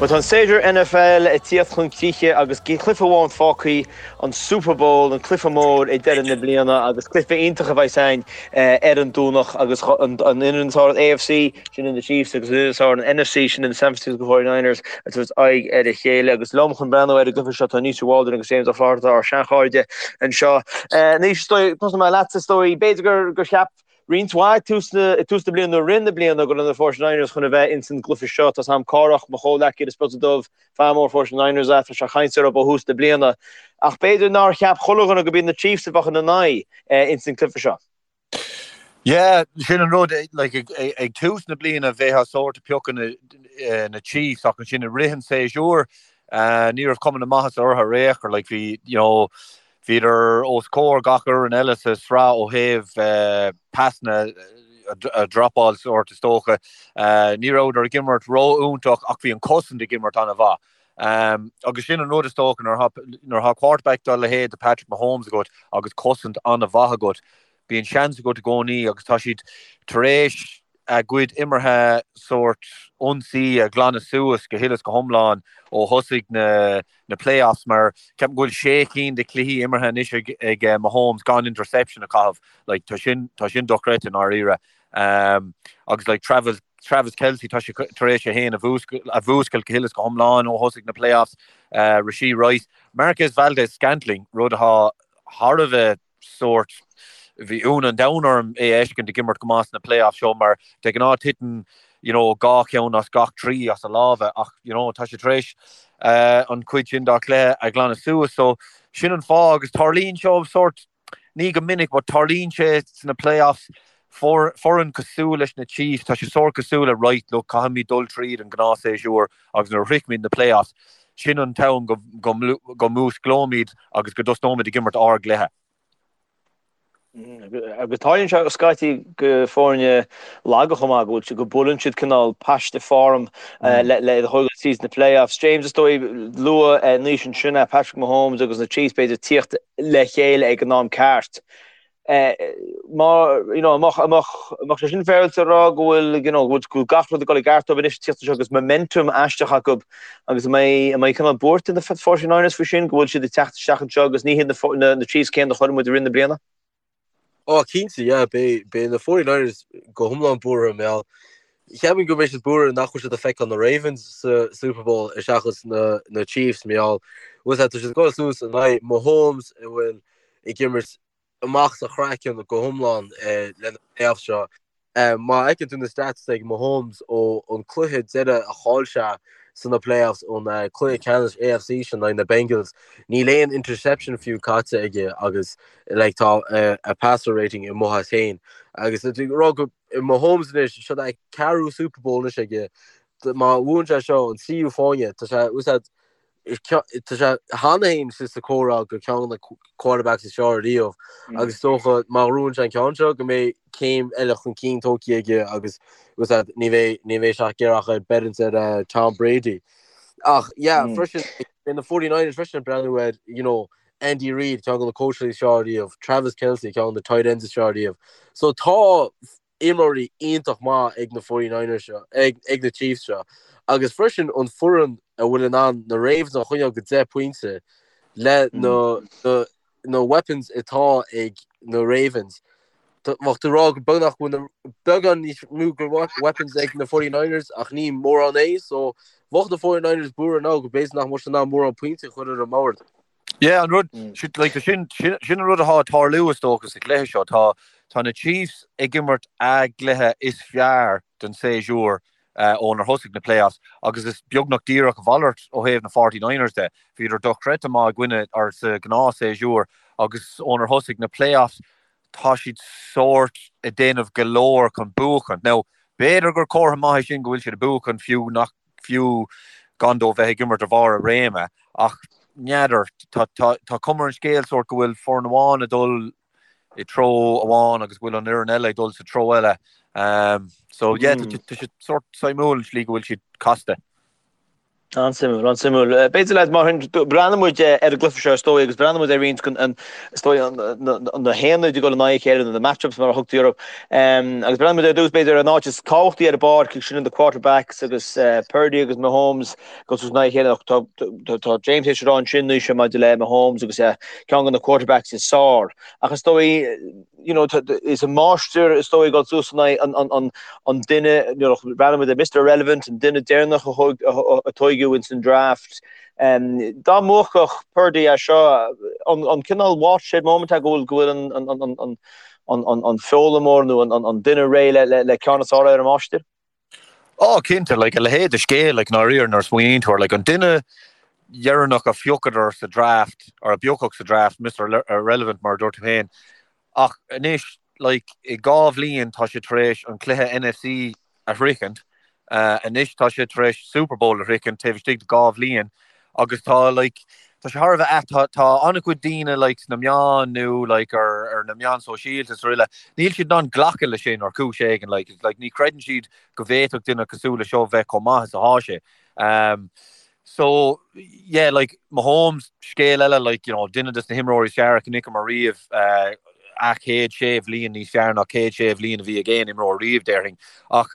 Bhuel, tá an séasúr NFL ag tíocht chun críche agus cluiche amháin fágtha, an Super Bowl, an cluiche mór ag deireadh na bliana agus cluiche iontach a bheas ann ar an Domhnach agus an fhoireann atá ar an AFC, sin na Chiefs, agus an fhoireann atá ar an NFC, sin na San Francisco 49ers, ag tabhairt aghaidh ar a chéile. Agus liom chun breathnú ar an gcluiche seo tá Naoise Waldron agus James Ó Flatharta, ár seanchairde anseo. Naoise, is dóigh, tosóidh mé leatsa, is dóigh, b'fhéidir gur cheap roinnt mhaith ag tús na bliana nó i rith na bliana go raibh na 49ers chun a bheith ins an gcluiche seo. Tá's a'm Cárthach, mo chomhghleacaí ar an Spota Dubh, fear mór 49ers é, tá sé ag caint orthu ó thús na bliana. Ach b'fhéidir nár cheap chuile dhuine gurb iad na Chiefs a bheadh ina n-aghaidh ins an gcluiche seo. Yeah, sin an rud, like, ag tús na bliana bheifeá sórt ag piocadh na Chiefs ach ansin i rith an tséasúir ní raibh cuma na maitheasa orthu ar aon chor, like, bhí, you know, Bhíodar os comhair gach fhoireann eile sa sraith ó thaobh pasanna a dhropáil sórt is dócha. Ní rabhadar ag imirt ró-iontach ach bhí an cosaint ag imirt an-mhaith. Agus sin an rud is dócha nuair atá quarterback dá leithéid de Patrick Mahomes agat agus cosaint an-mhaith agat, bíonn seans agat i gcónaí agus tá siad tar éis a gcuid imeartha sórt ionsaí a ghlanadh suas go huile is go hiomlán ó thosaigh na na playoffs mar ceapaim go bhfuil sé cinn de chluichí imeartha anois ag ag Mahomes gan interception a chaitheamh. Like tá sin tá sin dochreidte i ndáiríre. Um, agus like Travis Travis Kelce tá sé tar éis é féin a a mhúscailt go huile is go hiomlán ó thosaigh na playoffs. Uh, Rashee Rice, Marquez Valdes-Scantling, rud atá thar a bheith sórt, bhí ionadh an domhain orm é a fheiscint ag imirt go maith sna playoffs seo mar de ghnáth titeann you know dhá cheann as gach trí as a lámha ach you know tá sé tar éis an chuid sin dá chluiche a ghlanadh suas so sin an fáth agus tarlaíonn seo sórt ní go minic but tarlaíonn sé sna playoffs foireann cosúil leis na Chiefs tá sé sórt cosúil le right look caithfimid dul tríd an gnáthshéasúr agus nuair a shroichimid na playoffs, sin an t-am go go músclóimid agus go dtosnóimid ag imirt ár gcluiche. Agus tarlaíonn sé scaití go foirne laga chomh maith go bhfuil go buaileann siad cineál paiste form le le iad a thógáil tríd na playoffs. James is dóigh luaigh Naoise ansin é Patrick Mahomes agus na Chiefs b'fhéidir tíocht le chéile ag an am ceart. Má, you know, an mbeadh sé sin féaráilte a rá go bhfuil, you know, go bhfuil gach rud ag dul i gceart dóibh anois tíocht anseo agus momentum aisteach acu agus an mbeidh, an mbeidh cineál buairt ar na 49ers faoi sin, go bhfuil siad ag teacht isteach anseo agus ní hiad na, na Chiefs céanna a chonaic muid i rith na bliana? Ó, cinnte, yeah, beidh, beidh na 49ers go hiomlán buartha, mar gheall, cheapfainn go mbeidh siad buartha nach bhfuil siad ag feiceáil na Ravens sa Super Bowl seachas na, na Chiefs, mar gheall, bhfuil tá siad ag dul suas in aghaidh Mahomes a bhfuil ag imirt amach as a chraiceann go hiomlán le na playoffs seo. Má fheiceann tú na stats ag Mahomes ó an cluiche deireadh a chaill sé sna playoffs an cluiche ceannais AFC sin in aghaidh na Bengals, níl aon interception fiú caite aige agus like tá a passer rating amuigh as féin. Agus ag rá go Mahomes anois, seo é ceathrú Super Bowl anois aige, má bhuann sé seo an tríú fáinne, tá sé úsáid Tá sé cheana féin sa chomhrá go ceann de na quarterbacks is fearr riamh agus is dócha má ghnóthaíonn sé an ceann seo go mbeidh céim eile chun cinn tógtha aige agus ní bheidh ní bheidh sé ag iarraidh ach beirt ar Tom Brady. Ach yeah freisin beidh na 49ers freisin ag breathnú ar you know Andy Reid ceann de na coaches is fearr riamh, Travis Kelce ceann de na tight ends is fearr riamh. So tá imreoirí iontach maith ag na 49ers seo, ag ag na Chiefs seo, agus freisin an foireann a bhfuil in ann na Ravens a choinneáil go 10 pointe le na na na weapons atá ag na Ravens. Bheadh tú ag rá go beagnach go bhfuil na beagán níos mó go weapons ag na 49ers ach ní mórán é, so bheadh na 49ers buartha now go b'fhéidir nach mbeadh siad in ann mórán pointe a chur ar an mbord. Yeah, an rud, like, sin, sin, sin an rud atá ag tarlú is dócha sa chluiche seo. Tá, tá na Chiefs ag imirt a gcluiche is fearr den séasúr uh, ónar thosaigh na playoffs agus is beagnach díreach a mhalairt ó thaobh na 49ers de. Bhíodar dochreidte maith i gcoinne or sa ghnáth séasúr agus ónar thosaigh na playoffs tá siad sórt ag déanamh go leor chun buachan. Now, b'fhéidir gur comhartha maith é sin go bhfuil siad ag buachan fiú nach fiú gan dóibh bheith ag imirt ar bharr a réime, ach n'fheadar, tá cuma ar an scéal sórt go bhfuil foireann amháin ag dul i treo amháin agus go bhfuil an fhoireann eile ag dul sa treo eile. So yeah, tá sé sórt suimiúil an slí go bhfuil siad casta. An-suimiúil, an-suimiúil. B'fhéidir leaids, mar sin, breathnóidh muid ar an gcluiche seo is dóigh agus breathnóidh muid ar roinnt den, is dóigh, na haonaid ag dul in aghaidh a chéile, nó na match-ups mar a thugtaí orthu. Agus breathnóidh muid ar dtús b'fhéidir ar an áit is tábhachtaí ar an bpáirc, sin na quarterbacks agus Purdy agus Mahomes ag dul suas in aghaidh a chéile. Ach tá, tá James théis a rá ansin anois maidir le Mahomes agus ceann de na quarterbacks is fearr. Ach is dóigh, you know, is an máistir is dóigh ag dul suas in aghaidh an duine, you know, breathnaíonn muid ar Mr Irrelevant, an duine deireanach a tóigeadh ins an draft. Dá mbuafadh Purdy é seo, an cineál watershed moment é go bhfuil go bhfuil an foghlaimeoir nó an duine réidh le ceann is fearr ar an máistir? Ó, cinnte, like, a leithéid de scéal, like, ndáiríre, nuair a smaoiníonn tú air, like, an duine dheireanach a phiocadar sa draft, or a piocadh sa draft, Mister Irrelevant, mar a dúirt tú féin, ach anois, like, i 2 bhliain tá sé tar éis an cluiche NFC a shroichint, anois tá sé tar éis Super Bowl a shroichint taobh istigh de 2 bhliain, agus tá, like, tá sé thar a bheith ait, tá, tá an-chuid daoine, like, sna meáin nó, like, ar, ar na meáin sóisialta is araile, níl siad in ann glacadh leis sin ar chúis éigin, like, like, ní chreideann siad go bhféadfadh duine cosúil le seo bheith chomh maith is atá sé. Um, so, yeah, like, Mahomes, scéal eile, like, you know, duine des na himreoirí is fearr a chonaiceamar riamh, uh, a chéad sé bhliain níos fearr ná chéad sé bhliain a bhí ag aon imreoir riamh, déarfainn. Ach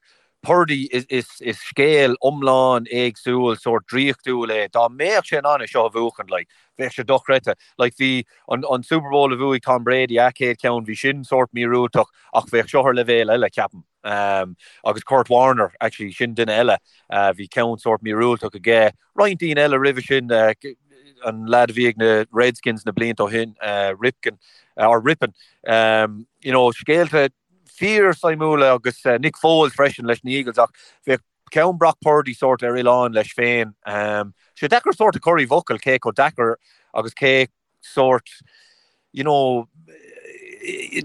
Purdy, is scéal iomlán éagsúil, sórt draíochtúil é. Dá mbeadh sé in ann é seo a bhuachan, like, bheadh sé dochreidte. Like, bhí an, an Super Bowl a bhuaigh Tom Brady, a chéad cheann, bhí sin sórt míorúilteach, ach bheadh seo ar leibhéal eile, ceapaim. Um, agus Kurt Warner, actually, sin duine eile, uh, bhí ceann sórt míorúilteach aige. Roinnt daoine eile roimhe sin, uh, an lad a bhí ag na Redskins na blianta ó shin, uh, Ripken, uh, or Rypien, um, you know, scéalta fíor-suimiúla agus Nick Foles freisin leis na Eagles ach bheadh ceann Brock Purdy sórt ar oileán leis féin. Tá sé deacair sórt a chur i bhfocail cé chomh deacair agus cé sórt you know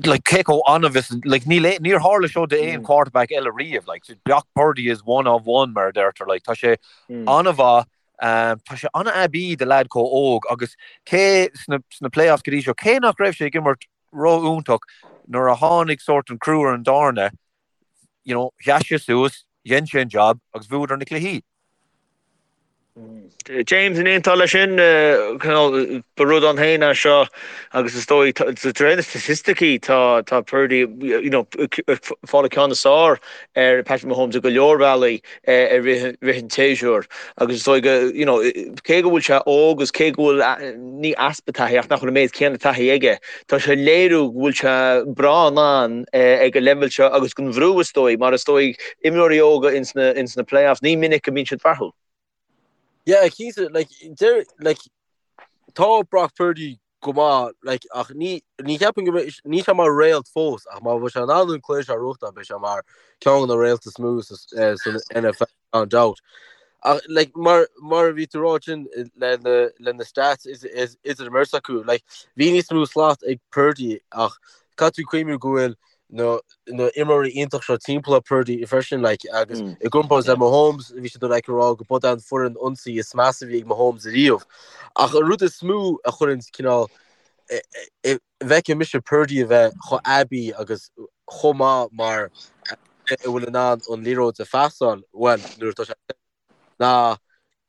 like cé chomh annamh is like níl níor tharla seo d'aon mm. quarterback eile riamh like Brock Purdy is one of one mar a deirtear like tá sé mm. an-mhaith um, tá sé an-aibí do leaid chomh óg agus cé sna, sna playoffs go dtí seo cé nach raibh sé ag imirt ró-iontach nuair a tháinig sórt an crú ar an dtairne, you know, sheas sé suas, dhein sé an job agus bhuadar na cluichí. James, an aontófá leis sin, ba rud ann féin é seo agus is dóigh, de réir na staitisticí, tá tá Purdy, you know, ag fáil an ceann is fearr ar Patrick Mahomes i go leor bealaí. i rith an tséasúir agus is dóigh go, you know, cé go bhfuil sé óg agus cé go bhfuil, ní easpa taithí ach nach bhfuil an méid céanna taithí aige, tá sé ag léiriú go bhfuil sé breá in ann ag an leibhéal seo agus den bhrú is dóigh, mar is dóigh imreoirí óga ins na, ins na playoffs, ní minic a mbíonn siad fearúil. Yeah, cinnte, like, deir, like, tá Brock Purdy go maith, like, ach ní, ní cheapaim go mbeidh, níl sé mar réalt fós, ach má bheidh sé in ann an cluiche seo a bhuachtáil, beidh sé mar ceann de na réalta is mó sa, eh, san NFL, gan dabht. Ach, like, mar, mar a bhí tú rá sin le na, le na stats is, is, idir an mbeirt acu, like, bhí níos mó slat ag Purdy ach caithfidh tú cuimhniú go bhfuil na na imreoirí iontach seo timpeall ar Purdy freisin like, agus mm. i gcomparáid le Mahomes bhí siad like, ag rá go b'é an foireann ionsaí is measa a bhí ag Mahomes ariamh. Ach an rud is mó a chuireann cineál bhfeiceann mise Purdy a bheith chomh aibí agus chomh maith mar a bhfuil in ann an liathróid a phasáil well nuair atá sé ná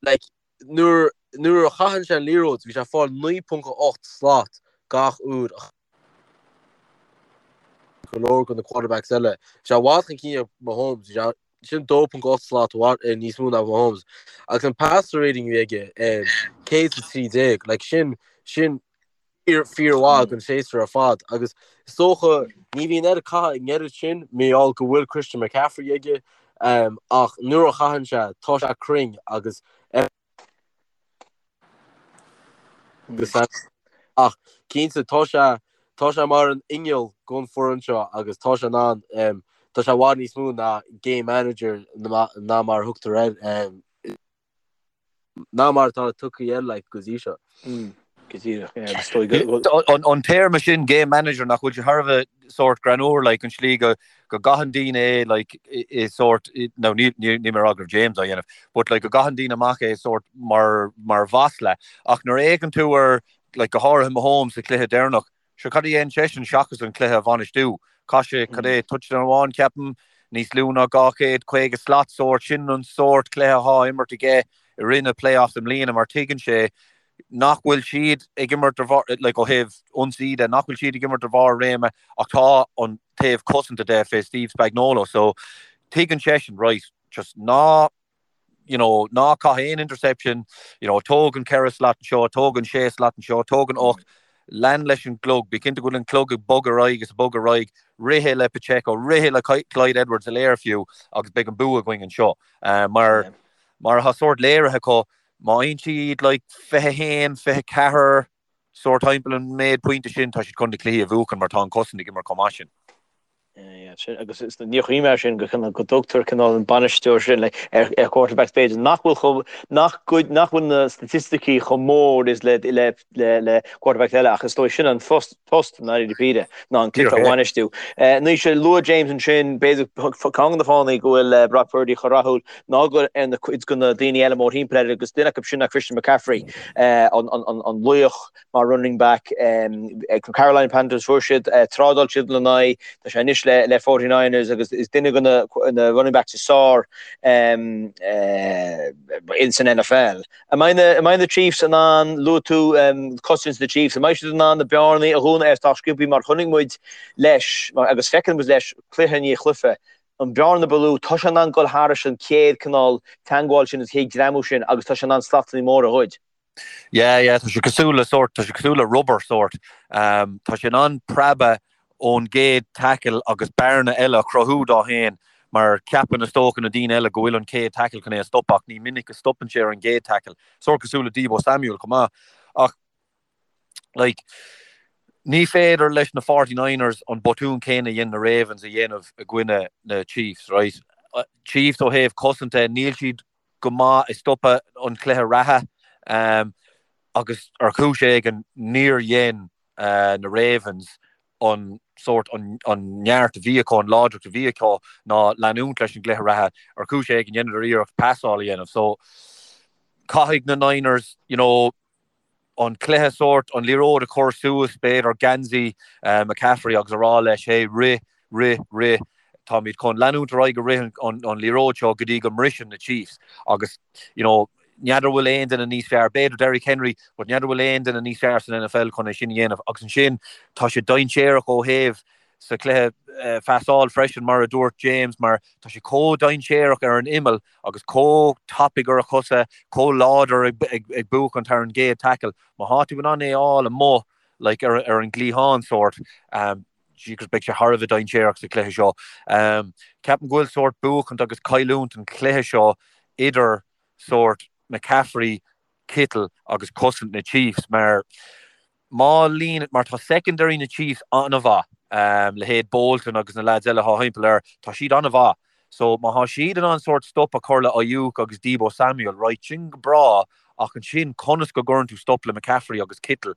like, nuair nuair a chaitheann sé an liathróid bhí sé ag fáil 9.8 slat gach uair a go leor de na quarterbacks eile. Bhí sé i bhfad chun cinn ar Mahomes, bhí sé sin 2.8 slat níos mó ná Mahomes. Agus an passer rating a bhí aige, 113, like sin, sin fíor, fíormhaith don séasúr ar fad. Agus is dócha, ní bhíonn air caitheamh an oiread sin, mar gheall go bhfuil Christian McCaffrey aige, ach nuair a chaitheann sé, tá sé cruinn agus Ach cinnte, tá sé, tá sé mar an inneall don foireann seo agus tá sé in ann, tá sé i bhfad níos mó ná game manager ná mar a thugtar air, ná mar atá tugtha air like go dtí seo. Go díreach, yeah, agus is dóigh go. An téarma sin game manager nach bhfuil sé thar a bheith sórt greannmhar like an slí go go gcaitheann daoine é like i sórt nó ní ní níl mé ag rá go raibh James á dhéanamh but like go gcaitheann daoine amach é sórt mar mar mhasla ach nuair a fhéachann tú ar like go háirithe Mahomes sa chluiche deireanach sure cad a dhein seisean seachas an cluiche a bhainistiú chaith sé cad é touchdown amháin ceapaim níos lú ná 250 slat sórt sin an sórt cluiche atá á imirt aige. i rith na playoffs i mbliana mar tuigeann sé nach bhfuil siad ag imirt ar bharr, like ó thaobh ionsaí de, nach bhfuil siad ag imirt ar bharr a réime ach tá an taobh cosanta de fé Steve Spagnuolo so tuigeann seisean, right, just ná you know, ná caith aon interception, you know, tóg an 4 slat anseo, tóg an 6 slat anseo, tóg an 8, lean leis an gclog, bí cinnte go bhfuil an clog ag bogadh ar aghaidh is ag bogadh ar aghaidh, rith é le Pacheco, rith é le Clyde Edwards-Helaire fiú agus beidh an bua againn anseo. Mar, mar atá sórt léirithe acu, má fhaigheann siad like 21, 24, sórt timpeall an méid pointe sin, tá siad chun na cluichí a bhuachan mar tá an cosaint ag imirt chomh maith sin. Agus níor chuimhnigh mé air sin go go dtugtar cineál an bainisteoir sin ar ar quarterbacks b'fhéidir nach bhfuil chomh nach gcuid nach bhfuil na staitisticí chomh mór is le le le le quarterbacks eile ach is dóigh sin an phost post i ndáiríre píre ná an cluiche a bhainistiú. Anois luaigh James ansin b'fhéidir ceann de na fáthanna go bhfuil Brock Purdy chomh rathúil ná go ar na cuid de na daoine eile mórthimpeall air agus duine acu sin ná Christian McCaffrey an an an laoch mar running back ag Carolina Panthers fuair siad trádáil siad lena aghaidh tá sé anois le le 49ers agus is duine de na na running backs is fearr in san NFL. An mbeidh na an mbeidh na Chiefs in ann luaigh tú cosaint na Chiefs an mbeidh siad in ann na bearnaí a dhúnadh ar sách sciobtha mar chonaic muid leis agus feiceann muid leis cluiche i ndiaidh cluiche an bearna ba lú tá sé in ann dul thairis an chéad cineál teagmháil sin an chéad greamú sin agus tá sé in ann slatanna móra a ghoid. Yeah, yeah, tá sé cosúil le sórt, tá sé cosúil le rubber sórt. Tá sé in ann preabadh ón gcéad tackle agus bearna eile a chruthú dó féin mar ceapann is dócha na daoine eile go bhfuil an chéad tackle chun é a stopadh ach ní minic a stopann sé ar an gcéad tackle. Sórt cosúil le Deebo Samuel chomh maith. Ach like, ní féidir leis na 49ers an botún céanna a dhein na Ravens a dhéanamh i gcoinne na Chiefs, right? Chiefs ó thaobh cosanta, níl siad go maith ag stopadh an chluiche reatha agus ar chúis éigin níor dhein na Ravens an sórt an neart a bhí acu, an láidreacht a bhí acu ná leanúint leis an gcluiche reatha. Ar chúis éigin dheineadar iarracht pasáil a dhéanamh. So caithfidh na Niners, you know, an cluiche sórt, an liathróid a chur suas, b'fhéidir, geansaí McCaffrey agus a rá leis, hey, rith, rith, rith, táimid chun leanúint ar aghaidh ag rith an liathróid seo go dtí go mbriseann na Chiefs agus, you know, n'fheadar bhfuil aon duine níos fearr, b'fhéidir Derrick Henry, but n'fheadar bhfuil aon duine níos fearr san NFL chun é sin a dhéanamh agus ansin tá sé dainséarach ó thaobh sa chluiche phasáil freisin mar a dúirt James mar tá sé chomh dainséarach ar an imeall agus chomh tapaidh ar a chosa, chomh láidir ag buachaint thar an gcéad tackle. Má thá tú in ann é a fháil amuigh like ar ar an gcliathán sórt, jeepers beidh sé thar a bheith dainséarach sa chluiche seo. Ceapaim go bhfuil sórt buachaint agus cailliúint an chluiche seo idir sórt McCaffrey, Kittle agus cosaint na Chiefs mar Má líon, mar tá secondary na Chiefs an-mhaith, leithéid Bolton agus na lads eile atá thimpeall air, tá siad an-mhaith. So má thá siad in ann sórt stop a chur le Aiyuk agus Deebo Samuel, right, sin go breá ach ansin conas go gcuireann tú stop le McCaffrey agus Kittle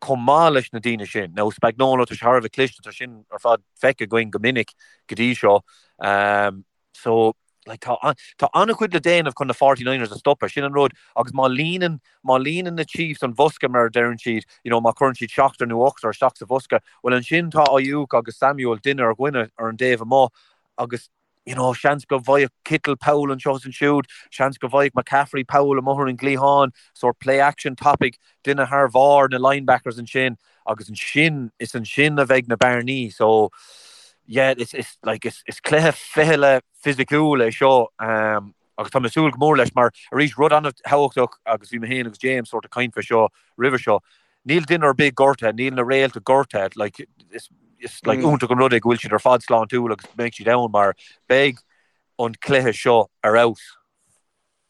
chomh maith leis na daoine sin? Now Spagnuolo, tá sé thar a bheith cliste, tá sin ar fad feicthe againn go minic go dtí seo. So, like, tá, tá an-chuid le déanamh chun na 49ers a stopadh, sin an rud, agus má líonann, má líonann na Chiefs an bhosca, mar a deireann siad, you know, má chuireann siad seachtar nó ochtar isteach sa bhosca, bhuel ansin tá Aiyuk agus Samuel duine ar dhuine ar an dtaobh amuigh agus, you know, seans go bhfaigheadh Kittle poll anseo is ansiúd, seans go bhfaigheadh McCaffrey poll amuigh ar an gcliathán, sórt play action tapaidh, duine thar bharr na linebackers ansin agus ansin, is ansin a bheidh na bearnaí. So, yeah, is, is, like, is, is cluiche fichille fisiciúil é seo um, agus tá mé ag súil go mór leis mar arís rud an-thábhachtach agus bhí mé féin agus James sort of ag caint fé seo roimhe seo. Níl duine ar bith gortaithe, níl na réalta gortaithe, like, is, is like, mm. iontach an rud é go bhfuil siad ar fad sláintiúil agus beidh siad ann mar beidh an cluiche seo ar fheabhas.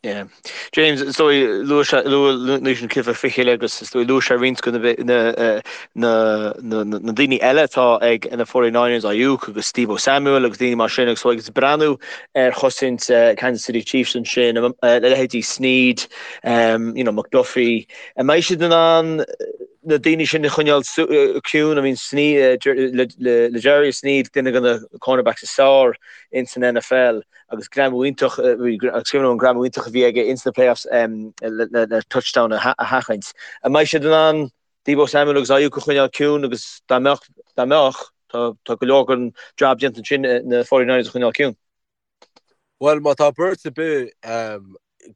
Yeah. James, is dóigh luaigh sé luaigh Naoise an cluiche fichille agus is dóigh luaigh sé roinnt de na na na na daoine eile atá ag na 49ers, Aiyuk agus Deebo Samuel agus daoine mar sin agus agus breathnú ar chosaint Kansas City Chiefs ansin, leithéidí Sneed, um, you know, McDuffie. An mbeidh siad in ann na daoine sin a choinneáil ciúin? I mean, Sneed, L'Jarius Sneed, duine de na cornerbacks is fearr in san NFL. agus greamú iontach, agus cuimhin liom an greamú iontach a bhí aige ins na playoffs le touchdown a sheachaint. An mbeidh siad in ann Deebo Samuel agus Aiyuk a choinneáil ciúin agus dá mbeadh, dá mbeadh, tá, tá go leor den job déanta ansin na 49ers a choinneáil ciúin. Bhuel, má tá beirt ar bith.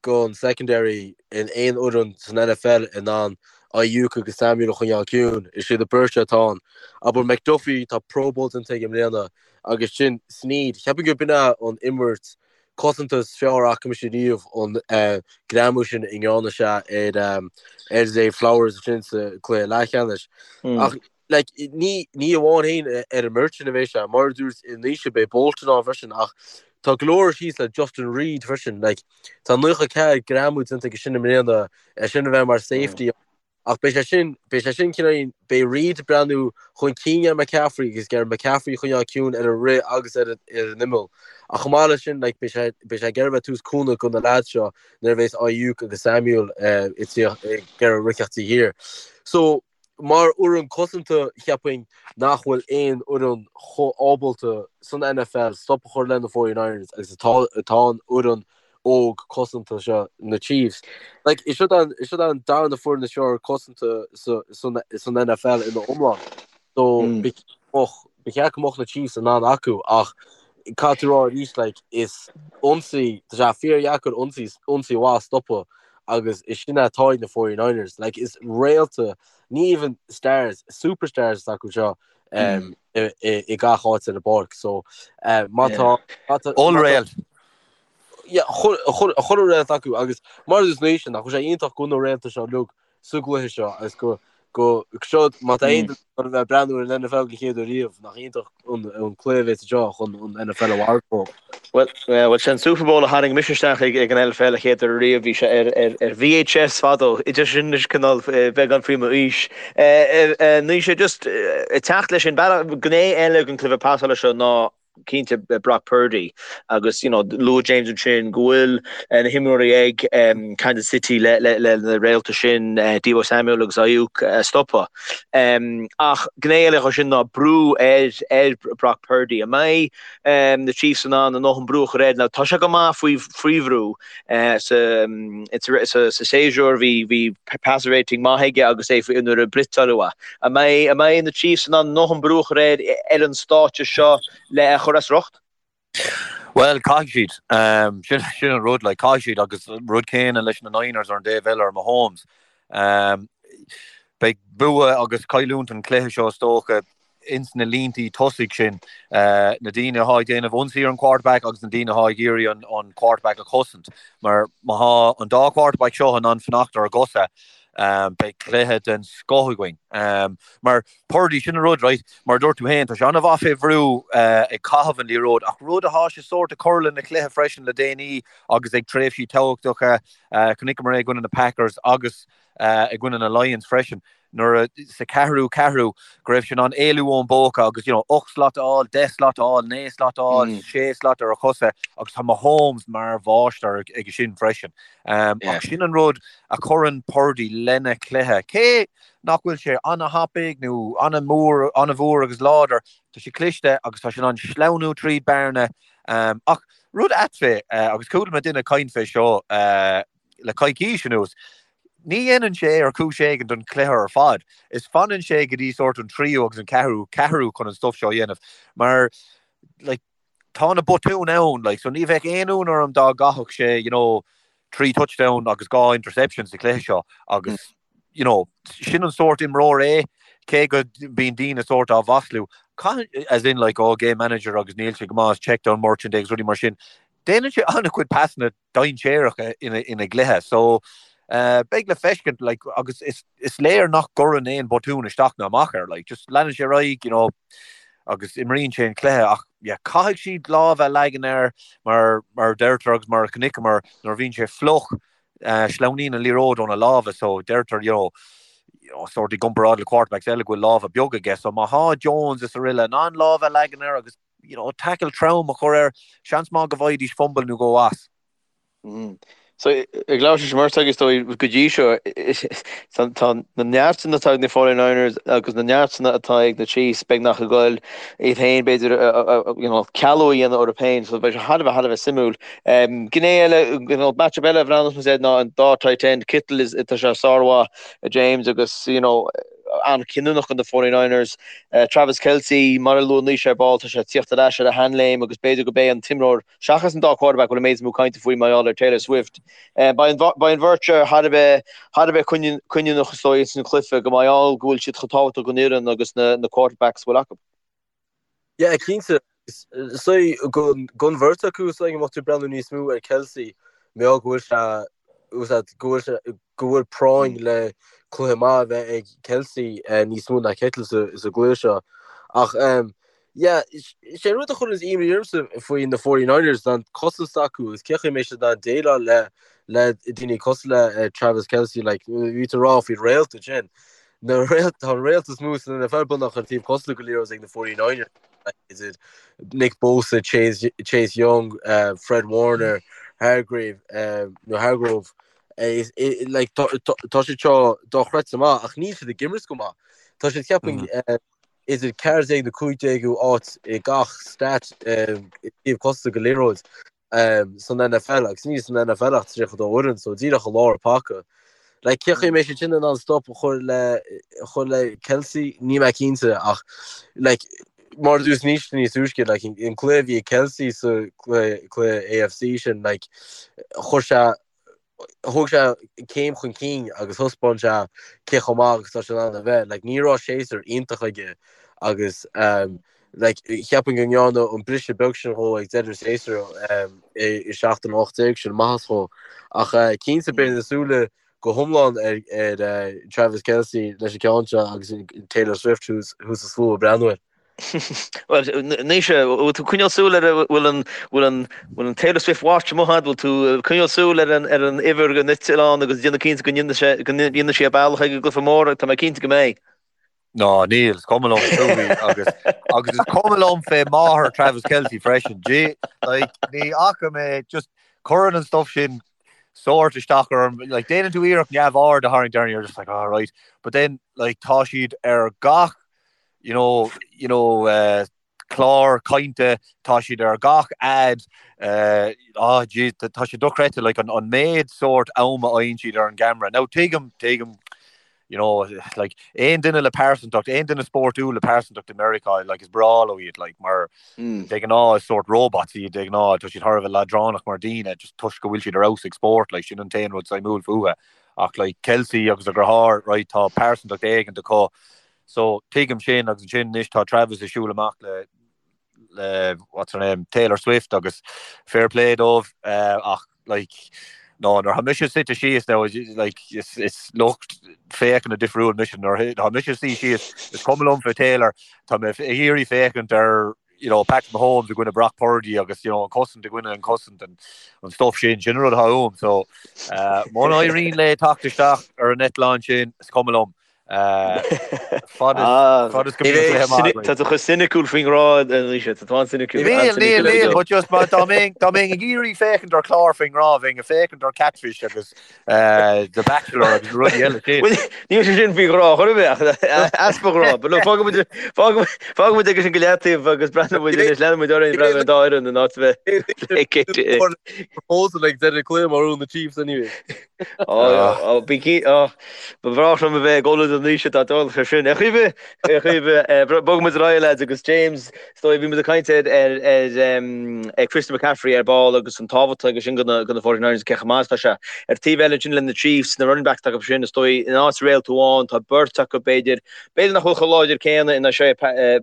gon secondary in aon fhoireann san NFL in ann Aiyuk agus Samuel a choinneáil ciúin. Is iad an bheirt atá ann. Abair McDuffie, tá Pro Bowl déanta aige i mbliana agus sin Sneed. Cheapfainn gurb in é an imirt cosanta is fearr a fhaca mise riamh an greamú sin a ndearna sé ar Zay Flowers ansin sa cluiche leathcheannais. Ach like, ní, ní amháin féin ar an mbeirt sin a bheidh sé, mar a dúirt Naoise, beidh Bolton ann freisin ach tá go leor síos le Justin Reid freisin. Like, tá 94 greamú déanta aige sin i mbliana, é sin a bheith mar safety ach beidh sé sin, beidh sé sin cineál, beidh Reid ag breathnú chun cinn ar McCaffrey agus ag iarraidh McCaffrey a choinneáil ciúin ar an rith agus ar an, ar an imeall. Ach chomh maith leis sin, like, beidh sé, beidh sé ag iarraidh bheith ag tabhairt cúnamh do na lads seo nuair a bheas Aiyuk agus Samuel ag iarraidh rith taobh thiar. So, Mar fhoireann cosanta, cheapfainn nach bhfuil aon fhoireann chomh ábalta san NFL stop a chur le na 49ers agus atá atá an fhoireann óg cosanta seo, na Chiefs. Like, is siad an, is siad an darna foireann is fearr cosanta sa, san, san NFL ina iomlán. So, ba mbeadh, ba cheart go mbeadh na Chiefs in ann acu ach caithfidh tú rá arís, like, is ionsaí, tá sé fíordheacair ionsaí, ionsaí mhaith a stopadh agus is sin atá ag na 49ers. Like, is réalta, ní even stars, superstars atá acu seo um, i, i, i gach áit ar an bpáirc. So, uh, má tá... má tá- Ollréalt. Yeah, chuile réalt acu agus mar is Naoise nach bhfuil sé iontach go bhfuil na réalta seo uilig sa gcluiche seo agus go go seo má tá aon duine chun a bheith ag breathnú ar an NFL den chéad uair riamh nach iontach an an cluiche a bheas anseo chun an NFL a mharcáil. Bhuel, bhuel sin Super Bowl a tharraing mise isteach ag ag an NFL a chéad uair riamh, bhí sé ar ar ar VHS fadó, idir sin is cineál beagán faoi m'aois. Naoise just ag teacht leis sin, gné eile den cluiche pasála seo ná cinnte Brock Purdy agus you know luaigh James ansin go bhfuil na himreoirí ag Kansas City le le le na réalta sin Deebo Samuel agus Aiyuk a stopadh. Ach gné eile dhe sin ná brú ar ar Brock Purdy. An mbeidh na Chiefs in ann a ndóthain brú a chur air? Now tá sé go maith faoi faoi bhrú sa sa sa séasúr bhí bhí passer rating maith aige agus é faoi nuair a blitzáladh uaidh. An mbeidh an mbeidh na Chiefs in ann a ndóthain brú a chur air ar an stáitse seo le é a chur as riocht? Bhuel, caithfidh siad. Sin sin an rud, like, caithfidh siad agus rud céanna leis na Niners ar an dtaobh eile ar Mahomes. Beidh bua agus cailliúint an chluiche seo is dócha ins na líntí tosaigh sin, na daoine atá ag déanamh ionsaí ar an quarterback agus na daoine atá ag iarraidh an an quarterback a chosaint. Mar má thá an dá quarterback seo in ann fanacht ar a gcosa, beidh cluiche den scoth againn. Mar Purdy, sin an rud, right, mar a dúirt tú féin, tá sé an-mhaith fé bhrú ag caitheamh an liathróid ach rud atá sé sórt ag cur lena chluiche freisin le déanaí agus ag tréimhsí tábhachtacha, chonaiceamar é i gcoinne na Packers agus i gcoinne na Lions freisin. nuair a, sa ceathrú ceathrú, go raibh sé in ann éalú ón bpóca agus, you know, 8 slat a fháil, 10 slat a fháil, 9 slat a fháil, 6 slat ar a chosa agus tá Mahomes mar mháistir aige sin freisin. Ach sin an rud a chuireann Purdy lena chluiche. Cé nach bhfuil sé an-thapaidh nó an-mhór, an-mhór agus láidir, tá sé cliste agus tá sé in ann sleamhnú tríd bearna. Ach rud ait fé, agus chuala mé duine ag caint fé seo le coicís anuas, Ní dhéanann sé é ar chúis éigin don chluiche ar fad. Is fanann sé go dtí sórt an tríú agus an ceathrú ceathrú chun an stuff seo a dhéanamh. Mar like tá na botúin ann like so ní bheadh aon ionadh orm dá gcaithfeadh sé you know 3 touchdown agus 2 interception sa chluiche seo agus you know sin an sórt imreoir é cé go mbíonn daoine sórt á mhaslú. Caitheann as in like oh game manager agus níl sé go maith is check down merchant agus rudaí mar sin. Déanann sé an-chuid pasanna dainséaracha ina gcluiche. So beidh le feiscint like agus is is léir nach gcuireann aon botún isteach ná amach air like just leanann sé ar aghaidh you know agus imríonn sé an cluiche ach yeah caithfidh siad lámh a leagan air mar mar deirtear agus mar a chonaiceamar nuair a bhíonn sé fliuch sleamhnaíonn an liathróid óna lámha so deirtear you know you know sort i gcomparáid le quarterbacks eile go bhfuil lámha beaga aige so má thá Jones is araile in ann lámh a leagan air agus you know, tackle trom a chur air, seans maith go bhfaighidís fumble nó dhó as. So, ag labhairt leis an mbeirt agaibh is dóigh go dtí seo, tá na neartanna atá ag na 49ers agus na neartanna atá ag na Chiefs beagnach ag goil iad féin b'fhéidir you know, cealú a dhéanamh orthu féin, so beidh sé thar a bheith thar a bheith suimiúil. Gné eile, you know, matchup eile a bhreathnós muid air ná an dá tight end, Kittle is, tá sé sármhaith, James agus, you know, an-chinniúnach do na 49ers. Travis Kelce, mar a luaigh Naoise ar ball, tá sé ag tíocht ar ais ar a sheanléim agus b'fhéidir gurb é an t-imreoir, seachas an dá quarterback, a bhfuil an méid is mó cainte faoi mar gheall ar Taylor Swift. Beidh an bheirt seo thar a bheith thar a bheith cinniúnach is dóigh ins an chluiche, go mar gheall go bhfuil siad chomh tábhachtach don fhoireann agus na quarterbacks a bhfuil acu. Yeah, cinnte. So, don bheirt acu, so go mbeadh tú ag breathnú níos mó ar Kelce, mar gheall go bhfuil sé, go bhfuil sé, go bhfuil práinn le cluiche maith a bheith ag Kelce níos mó ná Kittle sa gcluiche seo. Ach, yeah, sé an rud a chuireann imní ormsa faoi na 49ers ná an cosaint s'acu agus cé chaoi a mbeidh siad in ann déileáil le le daoine cosúil le Travis Kelce, like, bhí tú ag rá faoi réalta ansin. Na réalt, tá an réalt is mó san NFL beagnach ar taobh cosanta go liathróid ag na 49ers, idir Nick Bosa, Chase, Chase Young, uh, Fred Warner, Hargrave, uh, nó Hargrove, eh, is, eh, like, tá, tá, tá siad seo dochreidte maith ach níl siad ag imirt go maith. Tá siad ceapaim mm. uh, idir 14 nó 15ú áit i gach stat uh, i dtaobh cosanta go liathróid. san NFL agus níl san NFL ach 32 fhoireann so díreach i lár an paca. Like cé chaoi a mbeidh siad sin in ann stop a chur le chur le Kelce níl mé cinnte ach like mar a dúirt níos níos túisce like an cluiche a bhí ag Kelce sa cluiche cluiche AFC sin like chuir sé thóg sé céim chun cinn agus thaispeáin sé cé chomh maith agus tá sé in ann a bheith. Like, ní raibh séasúr iontach aige agus um, like, cheapfainn go ndearna an briseadh beag sin dhó ag deireadh an tséasúir um, i, i seachtain 18 sin maitheas dhó. Ach uh, cinnte beidh na súile go hiomlán ar, ar uh, Travis Kelce leis an ceann seo agus Taylor Swift thuas thuas sa slua ag breathnú air. Bhuel, Naoise, bhfuil tú ag coinneáil súil ar bhfuil an bhfuil an bhfuil an Taylor Swift watch amuigh agat, bhfuil tú ag coinneáil súil ar an ar an uimhir den eitleán agus déanamh cinnte go ndéanfaidh sé go ndéanfaidh sí a bealach ag an gcluiche mór, tá mé cinnte go mbeidh. Ná, níl, is cuma liom fúithi agus agus is cuma liom fé máthair Travis Kelce freisin. Gee, like, ní fhaca mé just cuireann an stuff sin sórt isteach orm, like, déanann tú iarracht neamhaird a tharraingt air and you're just like, oh, right. But then, like, tá siad ar gach you know, you know, uh, clár cainte, tá siad ar gach ad, uh, oh, geez, tá sé dochreidte, like, an, an méid sórt am a fhaigheann siad ar an gcamera. Now, tuigim, tuigim, you know, like, aon duine le pearsantacht, aon duine spórtúil le pearsantacht i Meiriceá, like, is breá leo iad, like, mar mm. de ghnáth is sórt robots iad de ghnáth, tá siad thar a bheith leadránach mar daoine, just toisc go bhfuil siad ar fheabhas ag spórt, like, sin an t-aon rud suimiúil fúthu. Ach, like, Kelce agus a dheartháir, right, tá pearsantacht éigin acu, So, tuigim sin agus ansin anois tá Travis ag siúl amach le le what's her name, Taylor Swift agus fair play dóibh ach like no nuair atá mise suite síos now like is is lucht féachana difriúil mise nuair atá mise suí síos is cuma liom fé Taylor tá mé ag iarraidh féachaint ar you know Patrick Mahomes i gcoinne Brock Purdy agus you know an cosaint i gcoinne an cosaint and an stuff sin sin an rud atá uaim so uh, muna éiríonn léi teacht isteach ar an eitleán sin is cuma liom Fad is go mbíonn cluiche maith againn. Tá tú chomh soiniciúil faoin ngrá, Naoise. Tá tú an-soiniciúil. Níl, níl, níl, but just dá mbeinn dá mbeinn ag iarraidh féachaint ar chlár faoin ngrá, bheinn ag féachaint ar Catfish agus The Bachelor agus na rudaí eile sin. Bhuel, níl sé sin faoi ghrá chor ar bith ach easpa ghrá. But look, fágfaidh muid fágfaidh muid aige sin go leataobh agus breathnóidh muid anois, leanfaidh muid orainn breathnú ar an dá fhoireann in áit a bheith Proposal ag deireadh cluiche má bhuann na Chiefs anyway. Ó, bí cinn, ó, ba bhreá liom a bheith ag ullmhú don Naoise dá dtarlódh sé sin. Ar chaoi ar bith, ar chaoi ar bith, bogfaidh muid ar aghaidh, lads, agus James, is dóigh, bhí muid ag caint ar, ar, ar, ar Christian McCaffrey ar ball agus an tábhacht aige sin do na, do na 49ers cé chomh maith is atá sé. Ar taobh eile ansin le na Chiefs, na running backs atá acu sin, is dóigh, in áit réalt amháin, tá beirt acu b'fhéidir, b'fhéidir nach bhfuil chomh láidir céanna in Isaiah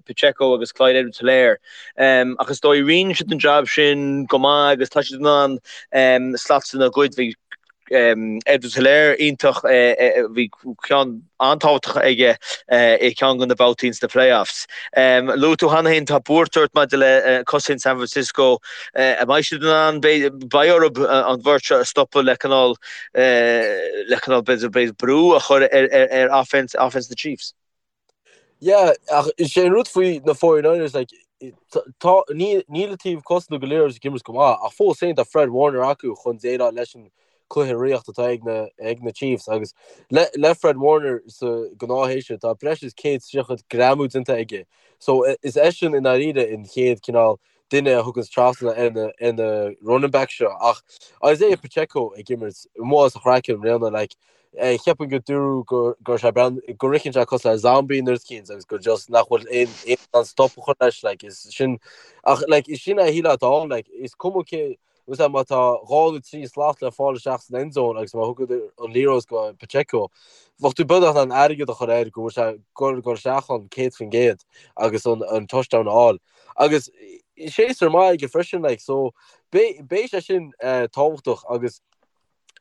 Pacheco agus Clyde Edwards-Helaire. Ach is dóigh, roinneann siad an jab sin go maith agus tá siad in ann slots a ghoid. Bhí Edwards-Helaire iontach, bhí ceann an-tábhachtach aige i gceann de na babhtaí sna playoffs. Luaigh tú cheana féin, tá buairt ort maidir le cosaint San Francisco. An mbeidh siad in ann, beidh orthu an bheirt seo a stopadh le cineál, le cineál b'fhéidir brú a chur ar offense, offense na Chiefs? Yeah, ach is é an rud faoi na 49ers, like, tá, níl, níl an taobh cosanta go léir ag imirt go maith, ach fós féin tá Fred Warner acu chun déileáil leis an cluiche ríochta atá ag na, ag na Chiefs agus le, le Fred Warner sa gnáthshéasúr tá breis is 130 greamú déanta aige. So is eisean i ndáiríre an chéad cineál duine a thuganns trasna ar na, ar na running backs seo ach Isaiah Pacheco ag imirt amuigh as a chraiceann i mbliana, like. Cheapfainn go dúradh go go raibh sé brean go ritheann sé cosúil le zombie nó rud eicínt agus go just nach bhfuil aon aon an stop a chur leis like is sin ach like is sin é a shílfeá atá ann like is cuma cé Is ea, má tá 2 nó 3 slat le fáil isteach san end zone agus má thugann an liathróid go Pacheco, bheadh tú beagnach in ann airgead a chur air go bhfuil sé ag dul isteach ann 100% agus an touchdown a fháil. Agus séasúr maith aige freisin, like, so beidh sé sin tábhachtach agus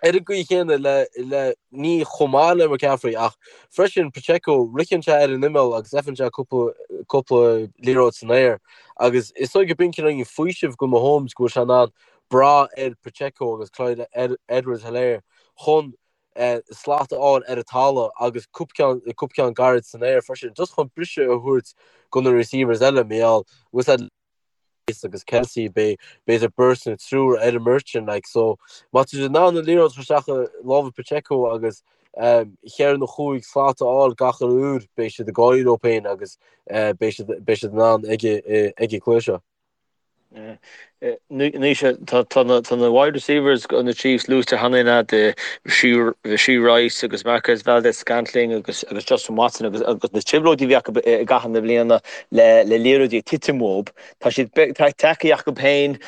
Ar an gcaoi chéanna le, le, ní chomh maith le McCaffrey ach freisin Pacheco, ritheann sé ar an imeall agus fhaigheann sé cúpla, cúpla liathróid san aer agus is dóigh go b'in cineál faoiseamh go Mahomes go bhfuil sé in ann brath ar Pacheco agus Clyde Edwards-Helaire chun slat a fháil ar an talamh agus cúpla ceann, cúpla ceann gairid san aer freisin just chun briseadh a thabhairt go na receivers eile, mar gheall, bhfuil a fhios agat. agus Kelce beidh b'fhéidir beirt nó triúr ar an mbeirt sin like so má tá siad in ann an liathróid a chur isteach i lámha Pacheco agus cheithre nó chúig slat a fháil gach uile uair beidh siad ag gáirí leo féin agus beidh siad beidh siad in ann ag ag an cluiche seo. Anois tá na tá na wide receivers do na Chiefs luaite cheana féin agat Rashee Rice agus Marquez Valdes-Scantling agus agus Justin Watson agus agus na trioblóidí a bhí acu i gcaitheamh na bliana le le liathróidí ag titim uathu. Tá siad tagtha acu féin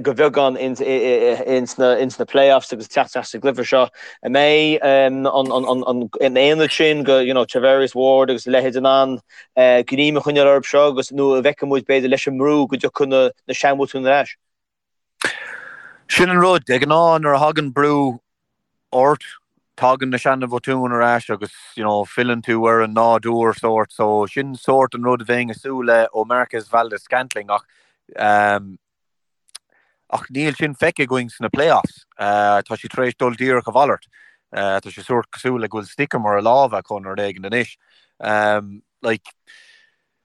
go bheagán ins na ins na playoffs agus teacht isteach sa gcluiche seo. An mbeidh an an aonad sin go you know Charvarius Ward agus a leithéid in ann greim a choinneáil orthu seo agus nó an bhfeicfidh muid b'fhéidir leis an mbrú go dtiocfaidh na na seanbhotúin ar ais? Sin an rud, de ghnáth nuair a thagann brú ort, tagann na seana-bhotúin ar ais agus you know filleann tú ar an nádúr sórt so sin sórt an rud a bheinn ag súil le ó Marquez Valdes-Scantling ach um, ach níl sin feicthe againn sna playoffs. Uh, tá sé tar éis dul díreach a mhalairt. Uh, tá sé sórt cosúil le go bhfuil stickum ar a lámha acu nó rud éigin anois. Um, like,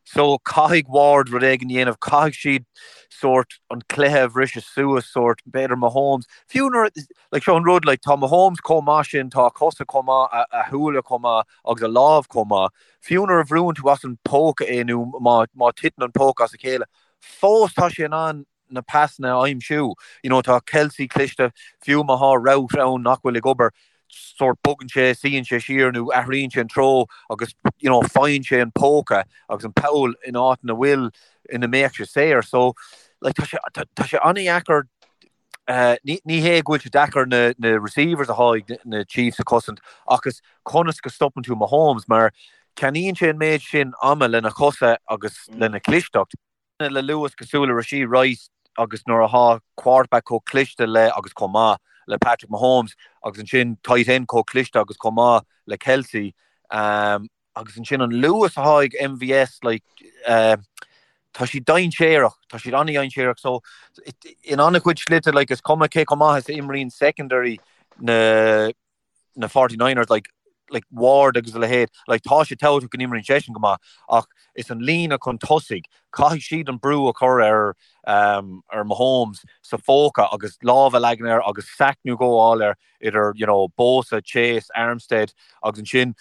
So, caithfidh Ward rud éigin a dhéanamh, caithfidh siad sórt an cluiche a bhriseadh suas, sórt, b'fhéidir Mahomes, fiú nuair, like, seo an rud, like, tá Mahomes chomh maith sin, tá a chosa chomh maith, a, a shúile chomh maith agus a lámh chomh maith, fiú nuair a bhrúann tú as an póca é nó má, má titeann an póca as a chéile, fós tá sé in ann na pasanna a aimsiú. You know, tá Kelce cliste, fiú má thá route ann nach bhfuil ag obair, sórt bogann sé, suíonn sé siar nó athraíonn sé an treo agus you know, faigheann sé an póca agus an poll in áit ina bhfuil, ina mbeadh sé saor. So, like, tá sé, tá, tá sé an-dheacair, uh, ní, ní hé go bhfuil sé deacair na, na receivers atá ag na Chiefs a chosaint ach is conas go stopann tú Mahomes mar ceannaíonn sé an méid sin ama lena chosa agus lena chlisteacht. le luas cosúil le Rashee Rice agus nuair athá quarterback chomh cliste le agus chomh maith le Patrick Mahomes agus ansin tight end chomh cliste agus chomh maith le Kelce agus ansin an luas athá ag MVS like tá siad dainséarach, tá siad an-dainséarach so in an-chuid slite like is cuma cé chomh maith is a imríonn secondary na na Forty Niners like like Ward agus a leithéid, like tá sé tábhachtach go n-imríonn seisean go maith ach is an líne chun tosaigh, caithfidh siad an brú a chur ar um, ar Mahomes sa phóca agus lámh a leagan air agus sack nó dhó a fháil air idir you know, Bosa, Chase, Armstead agus ansin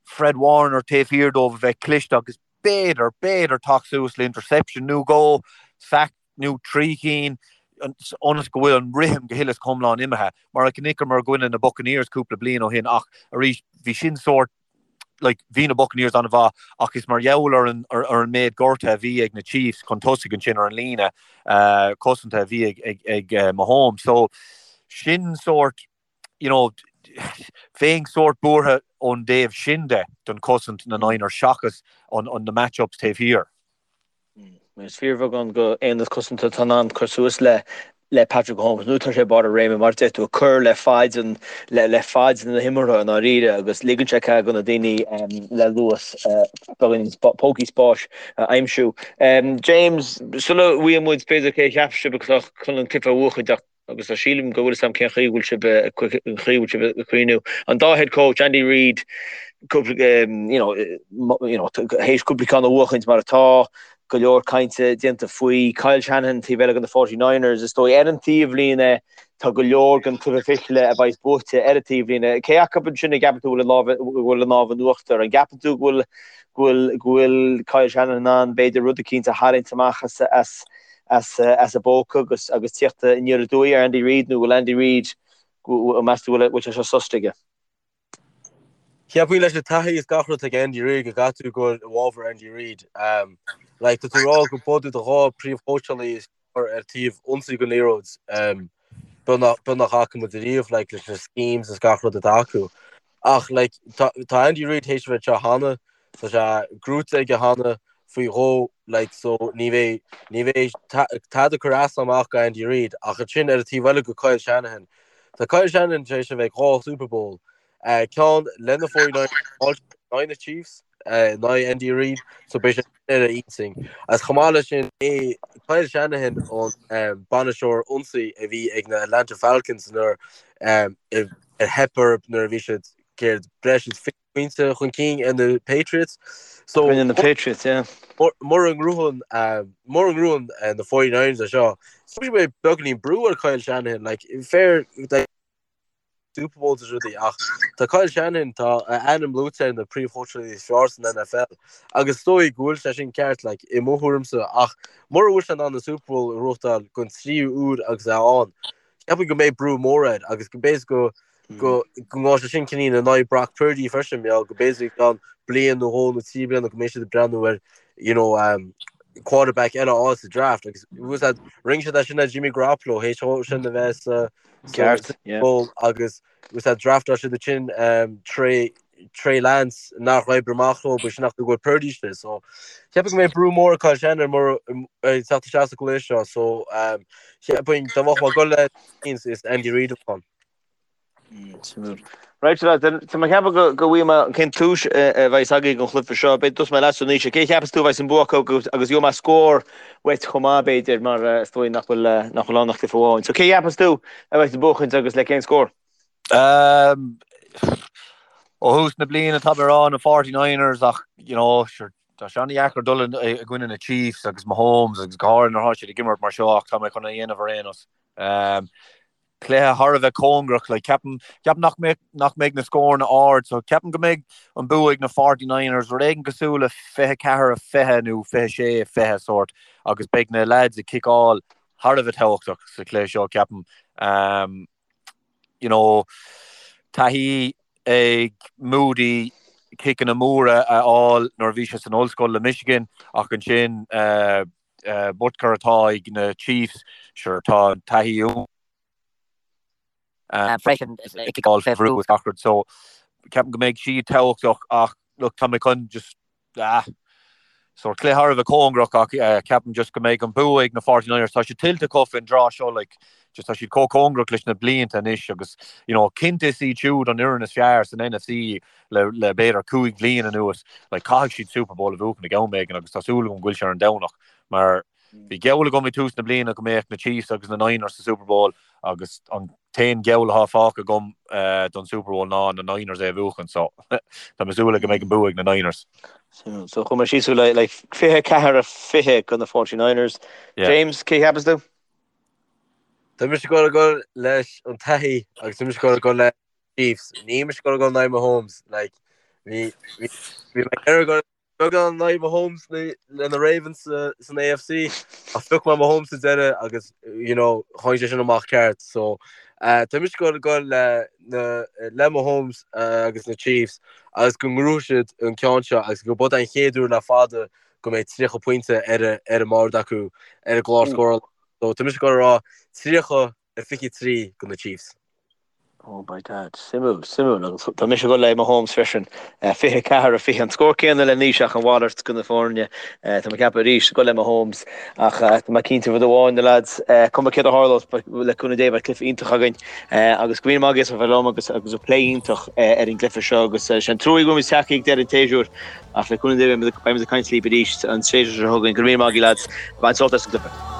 Fred Warner taobh thiar dóibh a bheith cliste agus b'fhéidir, b'fhéidir teacht suas le interception nó dhó, sack nó 3 chinn, ionas go bhfuil an rithim go huile is go hiomlán imithe, mar a chonaiceamar i gcoinne na Buccaneers cúpla bliain ó shin ach arís bhí sin sórt like bhí na Buccaneers an-mhaith ach is mar gheall ar an ar an méid gortaithe a bhí ag na Chiefs chun tosaigh ansin ar an líne cosanta a bhí ag ag ag Mahomes so sin sórt you know bheinn sórt buartha ón dtaobh sin de don chosaint na Niners seachas an an na match-ups taobh thiar. Is fíorbheagán go aonad cosanta atá in ann cur suas le le Patrick Mahomes nuair atá sé ag barr a réime mar a deir tú ag cur le faid an le le faid na himeartha i ndáiríre agus ligeann sé cead do na daoine le luas beagáinín pócaí spáis a aimsiú. James, sula bhfaighe muid b'fhéidir cé a cheap sibh atá chun an cluiche a bhuachaint ach agus tá sílim go bhfuil fhios agam cén chaoi a bhfuil sibh an chaoi a bhfuil sibh ag cuimhniú. An dá head coach, Andy Reid, cúpla you know, you know, théis cúpla ceann a bhuachaint mar atá, go leor cainte déanta faoi. Kyle Shanahan taobh eile de na 49ers, is dóigh ar an taobhlíne tá go leor den cluiche fichille a bheidh buaite ar an taobhlíne. Cé acu ansin a gceapann tú go bhfuil an lámh in uachtar? An gceapann tú go bhfuil go bhfuil go bhfuil Kyle Shanahan in ann b'fhéidir rud eicínt a tharraingt amach as as as a bpóca agus agus tíocht aniar aduaidh ar Andy Reid nó bhfuil Andy Reid meas tú bhfuil sé seo susta aige? Cheapfainn leis an taithí is gach rud ag Andy Reid go gcaithfidh tú goil i bhfabhar Andy Reid. Like, tá tú ag rá go b'iad do dhá príomhchóitseálaí is fearr ar taobh ionsaí den liathróid beag nach bhfaca muid ariamh like, leis na schemes is gach rud atá acu. Ach like, tá, tá Andy Reid théis a bheith anseo cheana, tá sé gnóite aige cheana faoi dhó like, so ní bheidh, ní bheidh tada ag cur as amach go Andy Reid ach ansin ar an taobh eile go Kyle Shanahan. Tá Kyle Shanahan tar éis a bheith ag dhá Super Bowl Ceann le na 49ers in aghaidh na Chiefs, in aghaidh Andy Reid, so beidh sé ar a intinn. Agus chomh maith leis sin, é Kyle Shanahan an bainisteoir ionsaí a bhí ag na Atlanta Falcons nuair ar theip orthu nuair a bhí siad céard breis is 20 pointe chun cinn ar na Patriots. So Rinne na Patriots, yeah. Mura ngnóthaíonn mura ngnóthaíonn na 49ers é seo, so beidh beagáinín brú ar Kyle Shanahan, like fair like, Super Bowls is rudaí ach tá Kyle Shanahan, tá a ainm luaite ar na príomhchóitseálaí is fearr san NFL agus is dóigh go bhfuil sé sin ceart like, i mo thuairimse ach mura bhfuil sé in ann an Super Bowl a ghnóthachtáil don tríú uair agus é ann, ceapaim go mbeidh brú mór air agus go b'fhéidir go go go ngabhfaidh sé sin cineál in aghaidh Brock Purdy freisin, mar go b'fhéidir i gceann bliain nó dhó nó trí bliana go mbeidh siad ag breathnú ar you know, um, quarterback eile a fháil sa draft agus rinne siad é sin le Jimmy Garoppolo théis dó sin a bheith sa Ceart, yeah. Bowl agus was that draftáil siad ansin Trey Trey Lance nár oibrigh amach leo b'shin nach go bhfuil Purdy istigh so cheapfainn go mbeidh brú mór ar Kyle Shanahan mar ag teacht isteach sa gcluiche seo so cheapfainn dá mbeadh mé ag dul le is Andy Reid a bheadh ann. Right, so lads, tá mé ag ceapadh go go bhfaighidh mé cén tomhas a bheas agaibh don chluiche seo. Beidh tosóidh mé leatsa Naoise. Cé a cheapas tú a bheas an bua acu agus agus gheobhaidh mé scór uait chomh maith b'fhéidir mar is dóigh nach bhfuil nach bhfuil ann ach cluiche amháin. So cé a cheapas tú a bheas ag buachaint agus le cén scór? Um, ó thús na bliana tá mé ag rá na 49ers ach you know, sure, tá sé an-dheacair dul i gcoinne na Chiefs agus Mahomes agus go háirithe nuair atá siad ag imirt mar seo ach tá mé chun é a dhéanamh ar aon nós. Um, cluiche thar a bheith cóngarach. Like, ceapaim, ceapaim nach mbeidh, nach mbeidh na scóranna ard, so ceapaim go mbeidh an bua ag na 49ers, rud éigin cosúil le 24 20 nó 26 20 sórt, agus beidh na lads ag ciceáil thar a bheith tábhachtach sa chluiche seo, ceapaim. Um, you know, taithí ag Moody ciceanna móra a fháil nuair a bhí sé san ollscoil le Michigan, ach ansin uh, Butker atá ag na Chiefs, sure tá an taithí freisin ag ciceáil fé bhrú is gach rud so ceapaim go mbeidh siad tábhachtach ach look tá mé chun just ah sort cluiche thar a bheith cóngarach ach ceapaim just go mbeidh an bua ag na 49ers tá sé tuillte acu faoin dtráth seo like just tá siad chomh cóngarach leis na blianta anois agus you know cinnte is iad siúd an fhoireann is fearr san NFC le le b'fhéidir 5 bhliain anuas, like caithfidh siad Super Bowl a bhuachan ag am éigin agus tá súil agam go bhfuil sé ar an Domhnach mar bhí geall agam ag tús na bliana go mbeadh na Chiefs agus na Niners sa Super Bowl agus an t-aon gheall atá fágtha agam don Super Bowl ná na Niners é a bhuachan so tá mé ag súil go mbeidh an bua ag na Niners. So chuir mé síos le like 24 20 go na 49ers. James, cé cheapas tú? Tá mise ag dul ag dul leis an taithí agus tá mise ag dul ag dul le Chiefs. Níl mise ag dul ag dul in aghaidh Mahomes. Like, bhí bhí bhí mé ag dul beagán in aghaidh Mahomes le le na Ravens sa san AFC ach phioc mé Mahomes sa deireadh agus you know tháinig sé sin amach ceart. So uh, tá mise ag dul ag dul le na le Mahomes uh, agus na Chiefs agus go ngnóthóidh siad an ceann seo agus go b'é an chéad uair le fada go mbeidh 30 pointe ar a ar an mbord acu ar an gclár scórála. So tá mise ag dul a rá 30 23 go na Chiefs. Oh by dad, suimiúil, suimiúil. Agus tá mise ag dul le Mahomes freisin. 24 20 an scór céanna le Naoise ach an mhalairt go na foirne. Tá mé ag ceapadh arís ag dul le Mahomes ach tá mé cinnte rud amháin na lads, cuma céard a tharlós le cúnamh Dé beidh cluiche iontach againn agus go raibh míle maith agaibh as a bheith liom agus agus an plé iontach ar an gcluiche seo agus sé an trua go bhfuil muid tagtha ag deireadh an tséasúir ach le cúnamh Dé beidh muid ag caint libh arís an séasúr seo chugainn. Go raibh míle maith agaibh lads. Bain sult as an gcluiche.